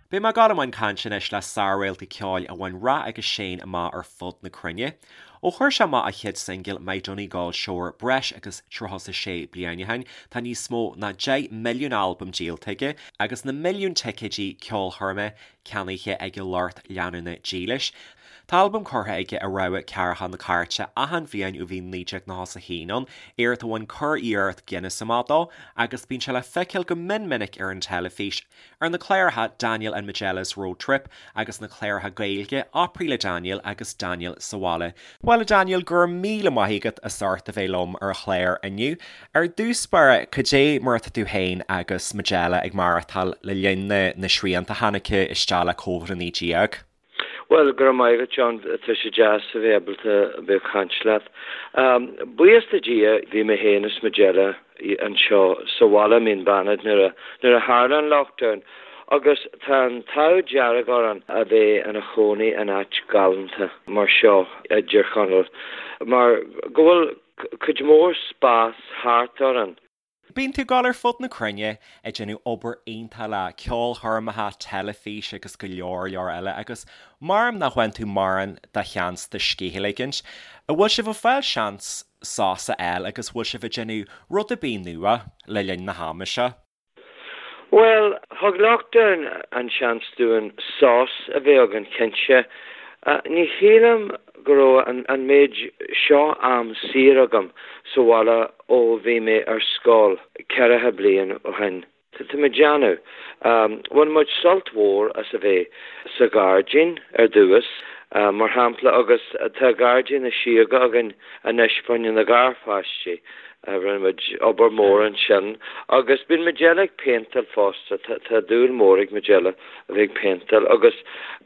Beidh mé ag dul i mbun cainte anois le sár-réalta ceoil a bhain rath agus séan amach ar fud na cruinne. Ó chuir sé amach a chéad singil My Donegal Shore breis agus 36 bliain ó shin, tá níos mó ná 10 milliún albam díolta aige agus na milliúin ticéidí ceolchoirme ceannaithe ag a lucht leanúna dílis. Tá albam curtha aige i rogha ceathracha na cairte achan bhliain ó bhí 1991 ann, éacht a bhain curiarracht Guinness amach dó, agus bíonn sé le feiceáil go mion minic ar an teilifís, ar na cláracha Daniel and Majella's Road Trip agus na cláracha Gaeilge Opry le Daniel agus Daniel sa Bhaile. Bhuel a Daniel, go raibh míle maith agat as ucht a bheith liom ar an chlár inniu. Ar dtús báire, cad é mar atá tú féin agus Majella ag maireachtáil le linn na na srianta a tháinig isteach le Covid-19? Bhuel, go raibh maith agat, John. Tá sé deas a bheith ábalta a bheith ag caint leat. Buíochas le Dia, bhí mé féin is Majella anseo sa bhaile i Mín Bannaid nuair a nuair a tharla an lockdown agus tá an t-ádh dearg orainn a bheith ina chónaí in áit galánta mar seo i dTír Chonaill mar go bhfuil cuid mhór spás thart orainn. Bíonn tú ag dul ar fud na cruinne ag déanamh obair iontach le ceolchoirmeacha, teilifís agus go leor leor eile agus maram nach bhfaigheann tú mórán de sheans do scíth a ligint. An bhfuil sibh ag fáil seans sos a fháil agus bhfuil sibh ag déanamh rud ar bith nua le linn na hama seo? Bhuel, thug lockdown an seans dúinn sos a bheith againn, cinnte. Ní shílim go raibh an méid seo am saor agam sa bhaile ó bhí mé ar scoil ceathracha bliain ó shin. Tá mé ag déanamh. Bhain muid sult mhór as a bheith sa ghairdín ar dtús, mar shampla, agus tá gairdín na síóga againn anois fá choinne na garpháistí. Rinne muid obair mhór ansin agus bíonn Majella ag péinteáil fosta. Tá dúil mhór ag Majella a bheith ag péinteáil agus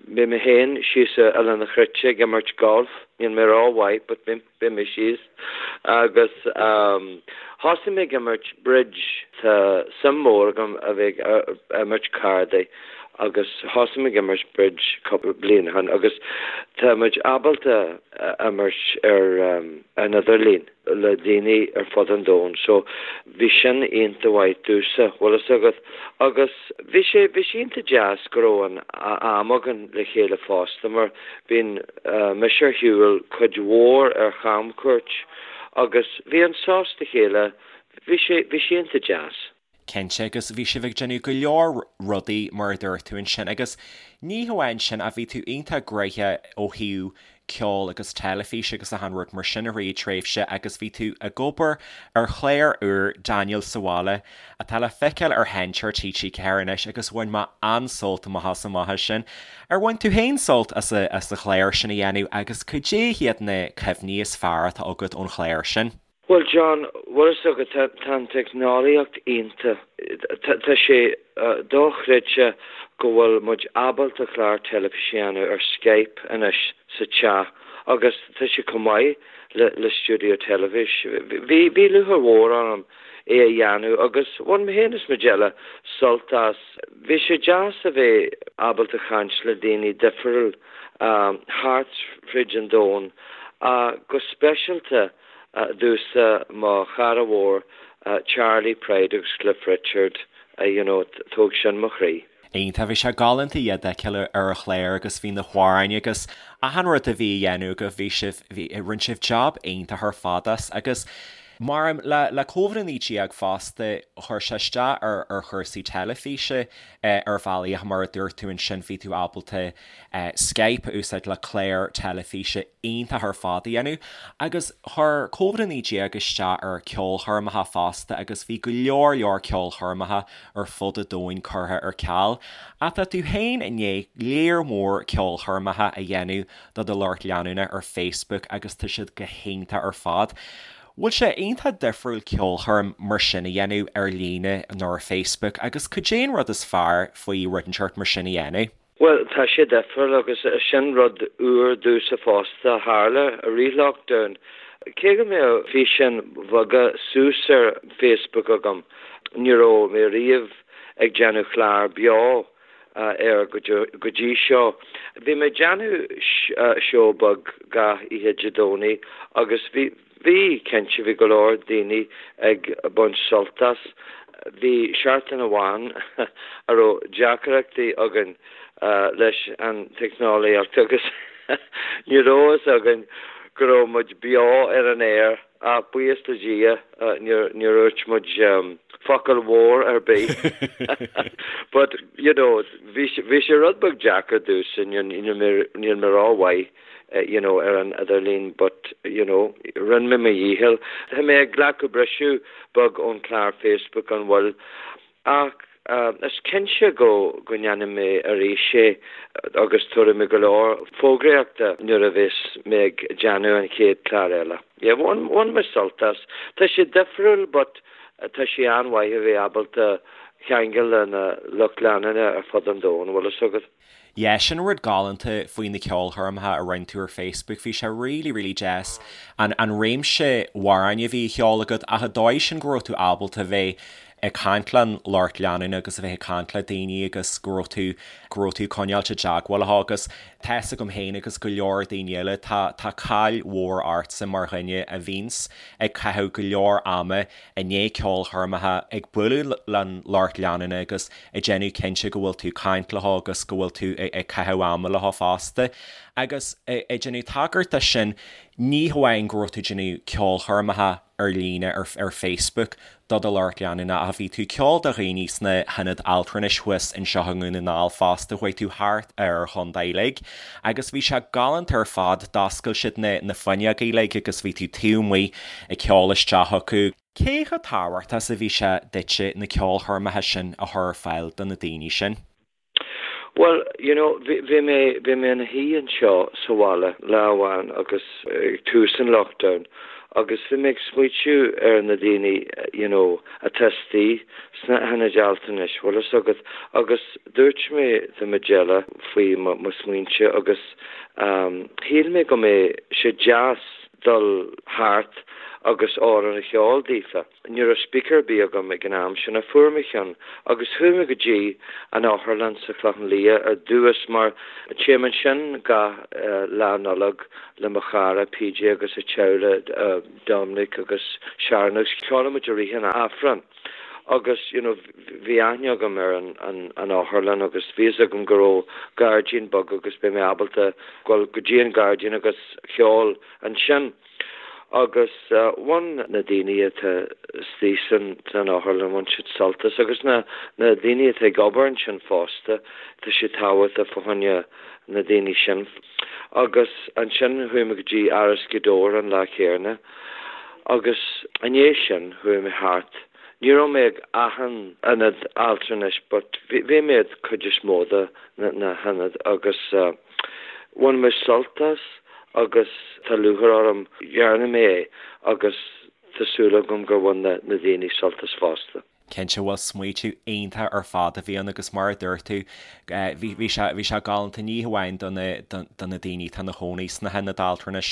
bíonn mé féin síos i Oileán an Chreite ag imirt golf. Níl mé rómhaith but bíonn mé síos agus thosaigh mé ag imirt bridge. Tá suim mhór agam a bheith ag imirt cárdaí agus thosaigh mé ag imirt bridge cúpla bliain ó shin agus tá muid ábalta imirt ar an idirlíon le daoine ar fud an domhain so bhí sin iontach mhaith domhsa, bhfuil fhios agat. Agus bhí sé, bhí sé iontach deas go raibh an am againn le chéile fosta mar bíonn mise ar shiúl cuid mhór ar chamchuairt agus bhí an sos le chéile, bhí sé, bhí sé iontach deas. Cinnte, agus bhí sibh ag déanamh go leor rudaí mar a dúirt tú ansin agus ní hamháin sin ach bhí tú iontach gnoitheach ó thaobh ceoil agus teilifís agus achan rud mar sin i rith tréimhse agus bhí tú ag obair ar chlár úr Daniel sa Bhaile atá le feiceáil ar Sheinnteoir TG4 anois agus bhain mé an-sult amach as amach as sin. Ar bhain tú féin sult as an chlár sin a dhéanamh agus cad é hiad na cuimhní is fearr atá agat ón chlár sin? Bhuel John, bhfuil fhios agat, tá an teicneolaíocht iontach. Tá sé dochreidte go bhfuil muid ábalta clár teilifíse a dhéanamh ar Skype anois sa teach agus tá sé chomh maith le stiúideo teilifís. Bhí bhí lúcháir mhór orm é a dhéanamh agus bhain mé féin is Majella sult as. Bhí sé deas a bheith ábalta caint le daoine difriúil thart fríd an domhan, go speisialta domhsa mo chara mhór Charley Pride agus Cliff Richard, you know, thóg sin mo chroí. Iontach, bhí sé galánta iad a fheiceáil ar an chlár agus bhí na hamhráin agus achan rud a bhí a dhéanamh agaibh, bhí sibh, bhí, rinne sibh job iontach ar fad as agus mar le, le Covid-19 fosta, chuir sé isteach ar, ar chúrsaí teilifíse ar bhealaí ach mar a dúirt tú ansin bhí tú ábalta Skype a úsáid le clár teilifíse iontach ar fad a dhéanamh agus chuir Covid-19 isteach ar ceolchoirmeacha fosta agus bhí go leor leor ceolchoirmeacha ar fud an domhain curtha ar ceal. Ach tá tú féin i ndiaidh léar mór ceolchoirmeacha a dhéanamh do do lucht leanúna ar Facebook agus tá siad go hiontach ar fad. Bhfuil sé iontach difriúil ceolchoirm mar sin a dhéanamh ar líne nó ar Facebook agus cad é an rud is fearr faoi rud inteacht mar sin a dhéanamh? Bhuel, tá sé difriúil agus sin rud úr domhsa fosta a tharla i rith lockdown. Cé go mbeadh físeáin bheaga suas ar Facebook agam, ní raibh mé riamh ag déanamh clár beo air go dtí seo. Bhí mé ag déanamh seó beag gach oíche Dé Domhnaigh agus bhí, bhí, cinnte, bhí go leor daoine ag baint sult as. bhí seachtain amháin a raibh deacrachtaí againn leis an teicneolaíocht agus ní raibh fhios againn go raibh muid beo ar an aer ach buíochas le Dia níor dhúirt muid focal mhór ar bith. But, you know, bhí sé rud beag deacair domhsa, níl mé rómhaith you know, ar an idirlíon but, you know, rinne mé mo dhícheall. Tá mé ag glacadh briseadh beag ón chlár Facebook, an bhfuil? Ach is cinnte go go ndéanfaidh mé arís é agus tabharfaidh mé go leor fógraíochta nuair a bheas mé ag déanamh an chéad chlár eile. Yeah, bhain bhain mé sult as. Tá sé difriúil but tá sé an-mhaith a bheith ábalta ceangal le na lucht leanúna ar fud an domhain, bhfuil fhios agat. Yeah, sin rud galánta faoi na ceolchoirmeacha a rinne tú ar Facebook, bhí sé really, really deas an an réimse amhráin a bhí á cheol agat ach an dóigh sin go raibh tú ábalta bheith ag caint le an lucht leanúna agus a bheith ag caint le daoine agus go raibh tú go raibh tú ag coinneáilt i dteagmháil leo agus tá fhios agam féin agus go leor daoine eile tá tá cáil mhór ortsa mar dhuine a bhíonns ag caitheamh go leor ama i ndiaidh ceolchoirmeacha, ag bualadh leis an lucht leanúna agus ag déanamh cinnte go bhfuil tú ag caint leo agus go bhfuil tú ag caitheamh ama leo fosta. Agus ag déanamh tagairt do sin, ní hamháin go raibh tú ag déanamh ceolchoirmeacha ar líne ar Facebook do do lucht leanúna ach bhí tú ag ceol do dhaoine sna hionaid altranais thuas anseo i nDún na nGall fosta, chuaigh tú thart ar an chontae uilig agus bhí sé galánta ar fad, d'oscail siad na na fuinneoga uilig agus bhí tú taobh amuigh ag ceol isteach acu. Cé chomh tábhachtach is a bhí sé duitse na ceolchoirmeacha sin a chur ar fáil do na daoine sin? Bhuel, you know, bhí, bhí mé, bhí mé ina shuí anseo sa bhaile lá amháin agus ag tús an lockdown agus bhí mé ag smaoitiú ar na daoine, you know, atá istigh sna hionaid altranais, bhfuil fhios agat, agus dúirt mé do Majella faoi mo, mo smaointe agus shíl mé go mbeadh sé deas dul thart agus amhrán a cheol daofa. Ní raibh speaker ar bith agam ag an am sin ach fuair mé ceann agus chuaigh mé go dtí an otharlann sa Chlochán Liath ar dtús mar téim ansin gach Lá Nollag le mo chara PJ agus a teaghlach Dominic agus Sharon agus ceolann muid i rith an Aifrinn. Agus you know bhí aithne agam ar an an otharlann agus bhí fhios agam go raibh gairdín beag agus beidh mé ábalta dul go dtí an gairdín agus ceol ansin. Agus bhain na daoine atá istigh san san otharlann, bhain siad sult as agus na na daoine atá ag obair ansin fosta, tá sé tábhachtach fá choinne na daoine sin. Agus ansin chuaigh mé go dtí Áras Ghaoth Dobhair an lá céanna. Agus i ndiaidh sin chuaigh mé thart, ní raibh mé ag achan ionad altranais but bhí mé ag cuid is mó de na hionaid agus bhain mé sult as agus tá lúcháir orm dhearna mé é agus tá súil agam gur bhain na daoine sult as fosta. Cinnte, bhuel smaoitiú iontach ar fad a bhí ann agus mar a dúirt tú, bhí, bhí sé, bhí sé galánta ní hamháin do na, do na daoine atá ina chónaí sna hionaid altranais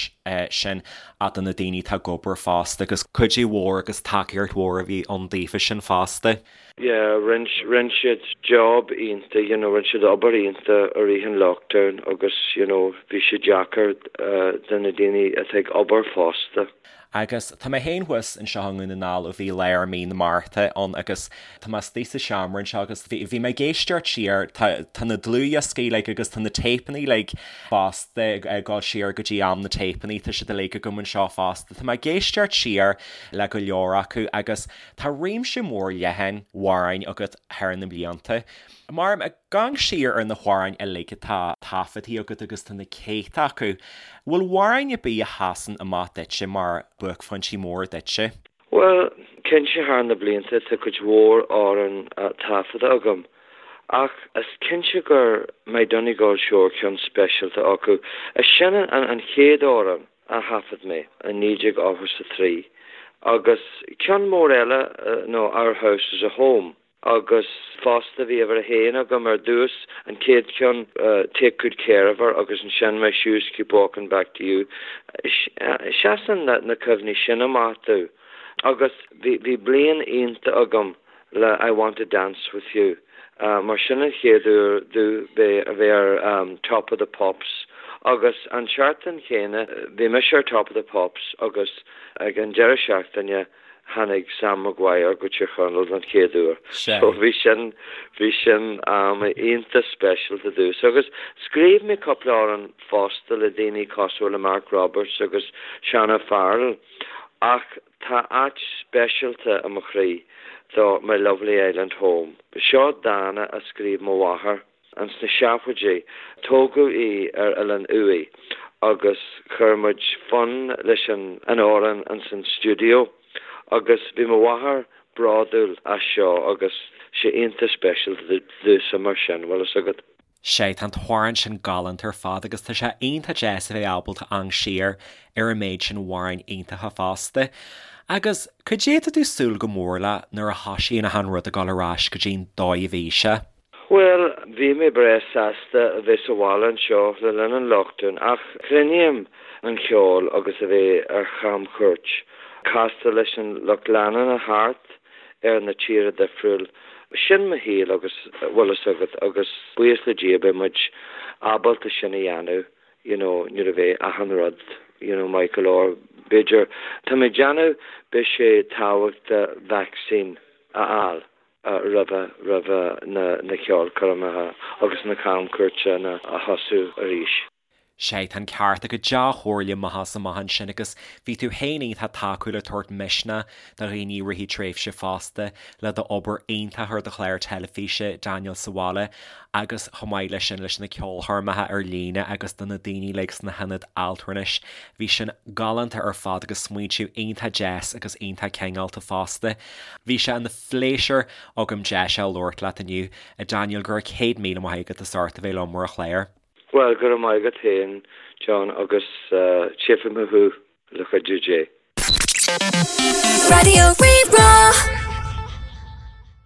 sin ach do na daoine atá ag obair fosta agus cuidiú mhór agus tacaíocht mhór a bhí ann daofa sin fosta. Yeah, rinne, rinne siad job iontach, you know, rinne siad obair iontach i rith an lockdown agus, you know, bhí sé deacair do na daoine atá ag obair fosta. Agus tá mé féin thuas anseo i nDún na nGall ó bhí lár mí na Márta ann agus tá mé istigh sa seomra anseo agus bhí, bhí mé ag éisteacht siar, tá, tá na dlúthdhioscaí uilig agus tá na téipeanna uilig fosta ag dul siar go dtí am na téipeanna, tá siad uilig agam anseo fosta. Tá mé ag éisteacht siar le go leor acu agus tá réimse mór leathan amhráin agat thar na blianta. Mar, ag amharc siar ar na hamhráin uilig atá taifeadtaí agat agus tá na céadta acu, bhfuil amhráin ar bith a sheasann amach duitse mar buaicphointí móra duitse? Bhuel, cinnte thar na blianta tá cuid mhór amhrán taifeadta agam ach is cinnte gur My Donegal Shore ceann speisialta acu. Is sin an chéad amhrán a thaifead mé i 1983 agus ceann mór eile nó Our House is a Home. Agus fosta bhí uimhir a haon agam ar dtús, an chéad cheann, Take Good Care of Her agus ansin My Shoes Keep Walking Back to You. Seasann na cuimhní sin amach domh. Agus bhí bhí bliain iontach agam le I Want to Dance With You mar sin an chéad uair domh bheith a bheith ar Top of the Pops. Agus an tseachtain chéanna bhí mise ar Top of the Pops agus ag an deireadh seachtaine tháinig Sam Maguire go Tír Chonaill don chéad uair. So bhí sin, bhí sin am iontach speisialta domhsa. Agus scríobh mé cúpla amhrán fosta le daoine cosúil le Mark Roberts agus Seán O'Farrell ach tá áit speisialta i mo chroí do My Lovely Island Home. Seo dán a scríobh mo mháthair. Ins na seachtóidí, tógadh í ar Oileán Uaighe agus chuir muid fonn leis an amhrán ins an stiúideo agus bhí mo mháthair bródúil as seo agus sé iontach speisialta domhsa mar sin, bhfuil fhios agat. Sea, tá an t-amhrán sin galánta ar fad agus tá sé iontach deas a bheith ábalta amharc siar ar an méid sin amhráin iontacha fosta. Agus cad é atá tú ag súil go mór le nuair a thosaíonn achan rud ag dul ar ais go dtí an dóigh a bhí sé? Bhuel, bhí mé breá sásta a bheith sa bhaile anseo le linn an lockdown ach cluinim an cheol agus a bheith ar chamchuairt, castáil leis an lucht leanúna thart ar na tíortha difriúil. Sin mo shaol agus, bhfuil fhios agat, agus buíochas le Dia beidh muid ábalta sin a dhéanamh you know nuair a bheidh achan rud you know maith go leor. B'fhéidir, tá mé ag déanamh, beidh sé tábhachtach vaccine a fháil. roimhe roimhe na ceolchoirmeacha agus na camchuairteanna a thosú arís. Sea, tá an ceart agat, dea-chomhairle amach is amach ansin agus bhí tú féin iontach tacúil ag tabhairt misneach do dhaoine i rith an tréimhse fosta le d'obair iontach ar do chlár teilifíse Daniel sa Bhaile agus chomh maith leis sin leis na ceolchoirmeacha ar líne agus do na daoine uilig sna hionaid altranais. Bhí sin galánta ar fad agus smaointiú iontach deas agus iontach cineálta fosta. Bhí sé ina phléisiúr agam deis a labhairt leat inniu, a Daniel, go raibh 100,000 maith agat as ucht a bheith liom ar an chlár. Bhuel, go raibh maith agat féin, John, agus tchífidh mé thú, le cuidiú Dé. Raidió Rí-Rá.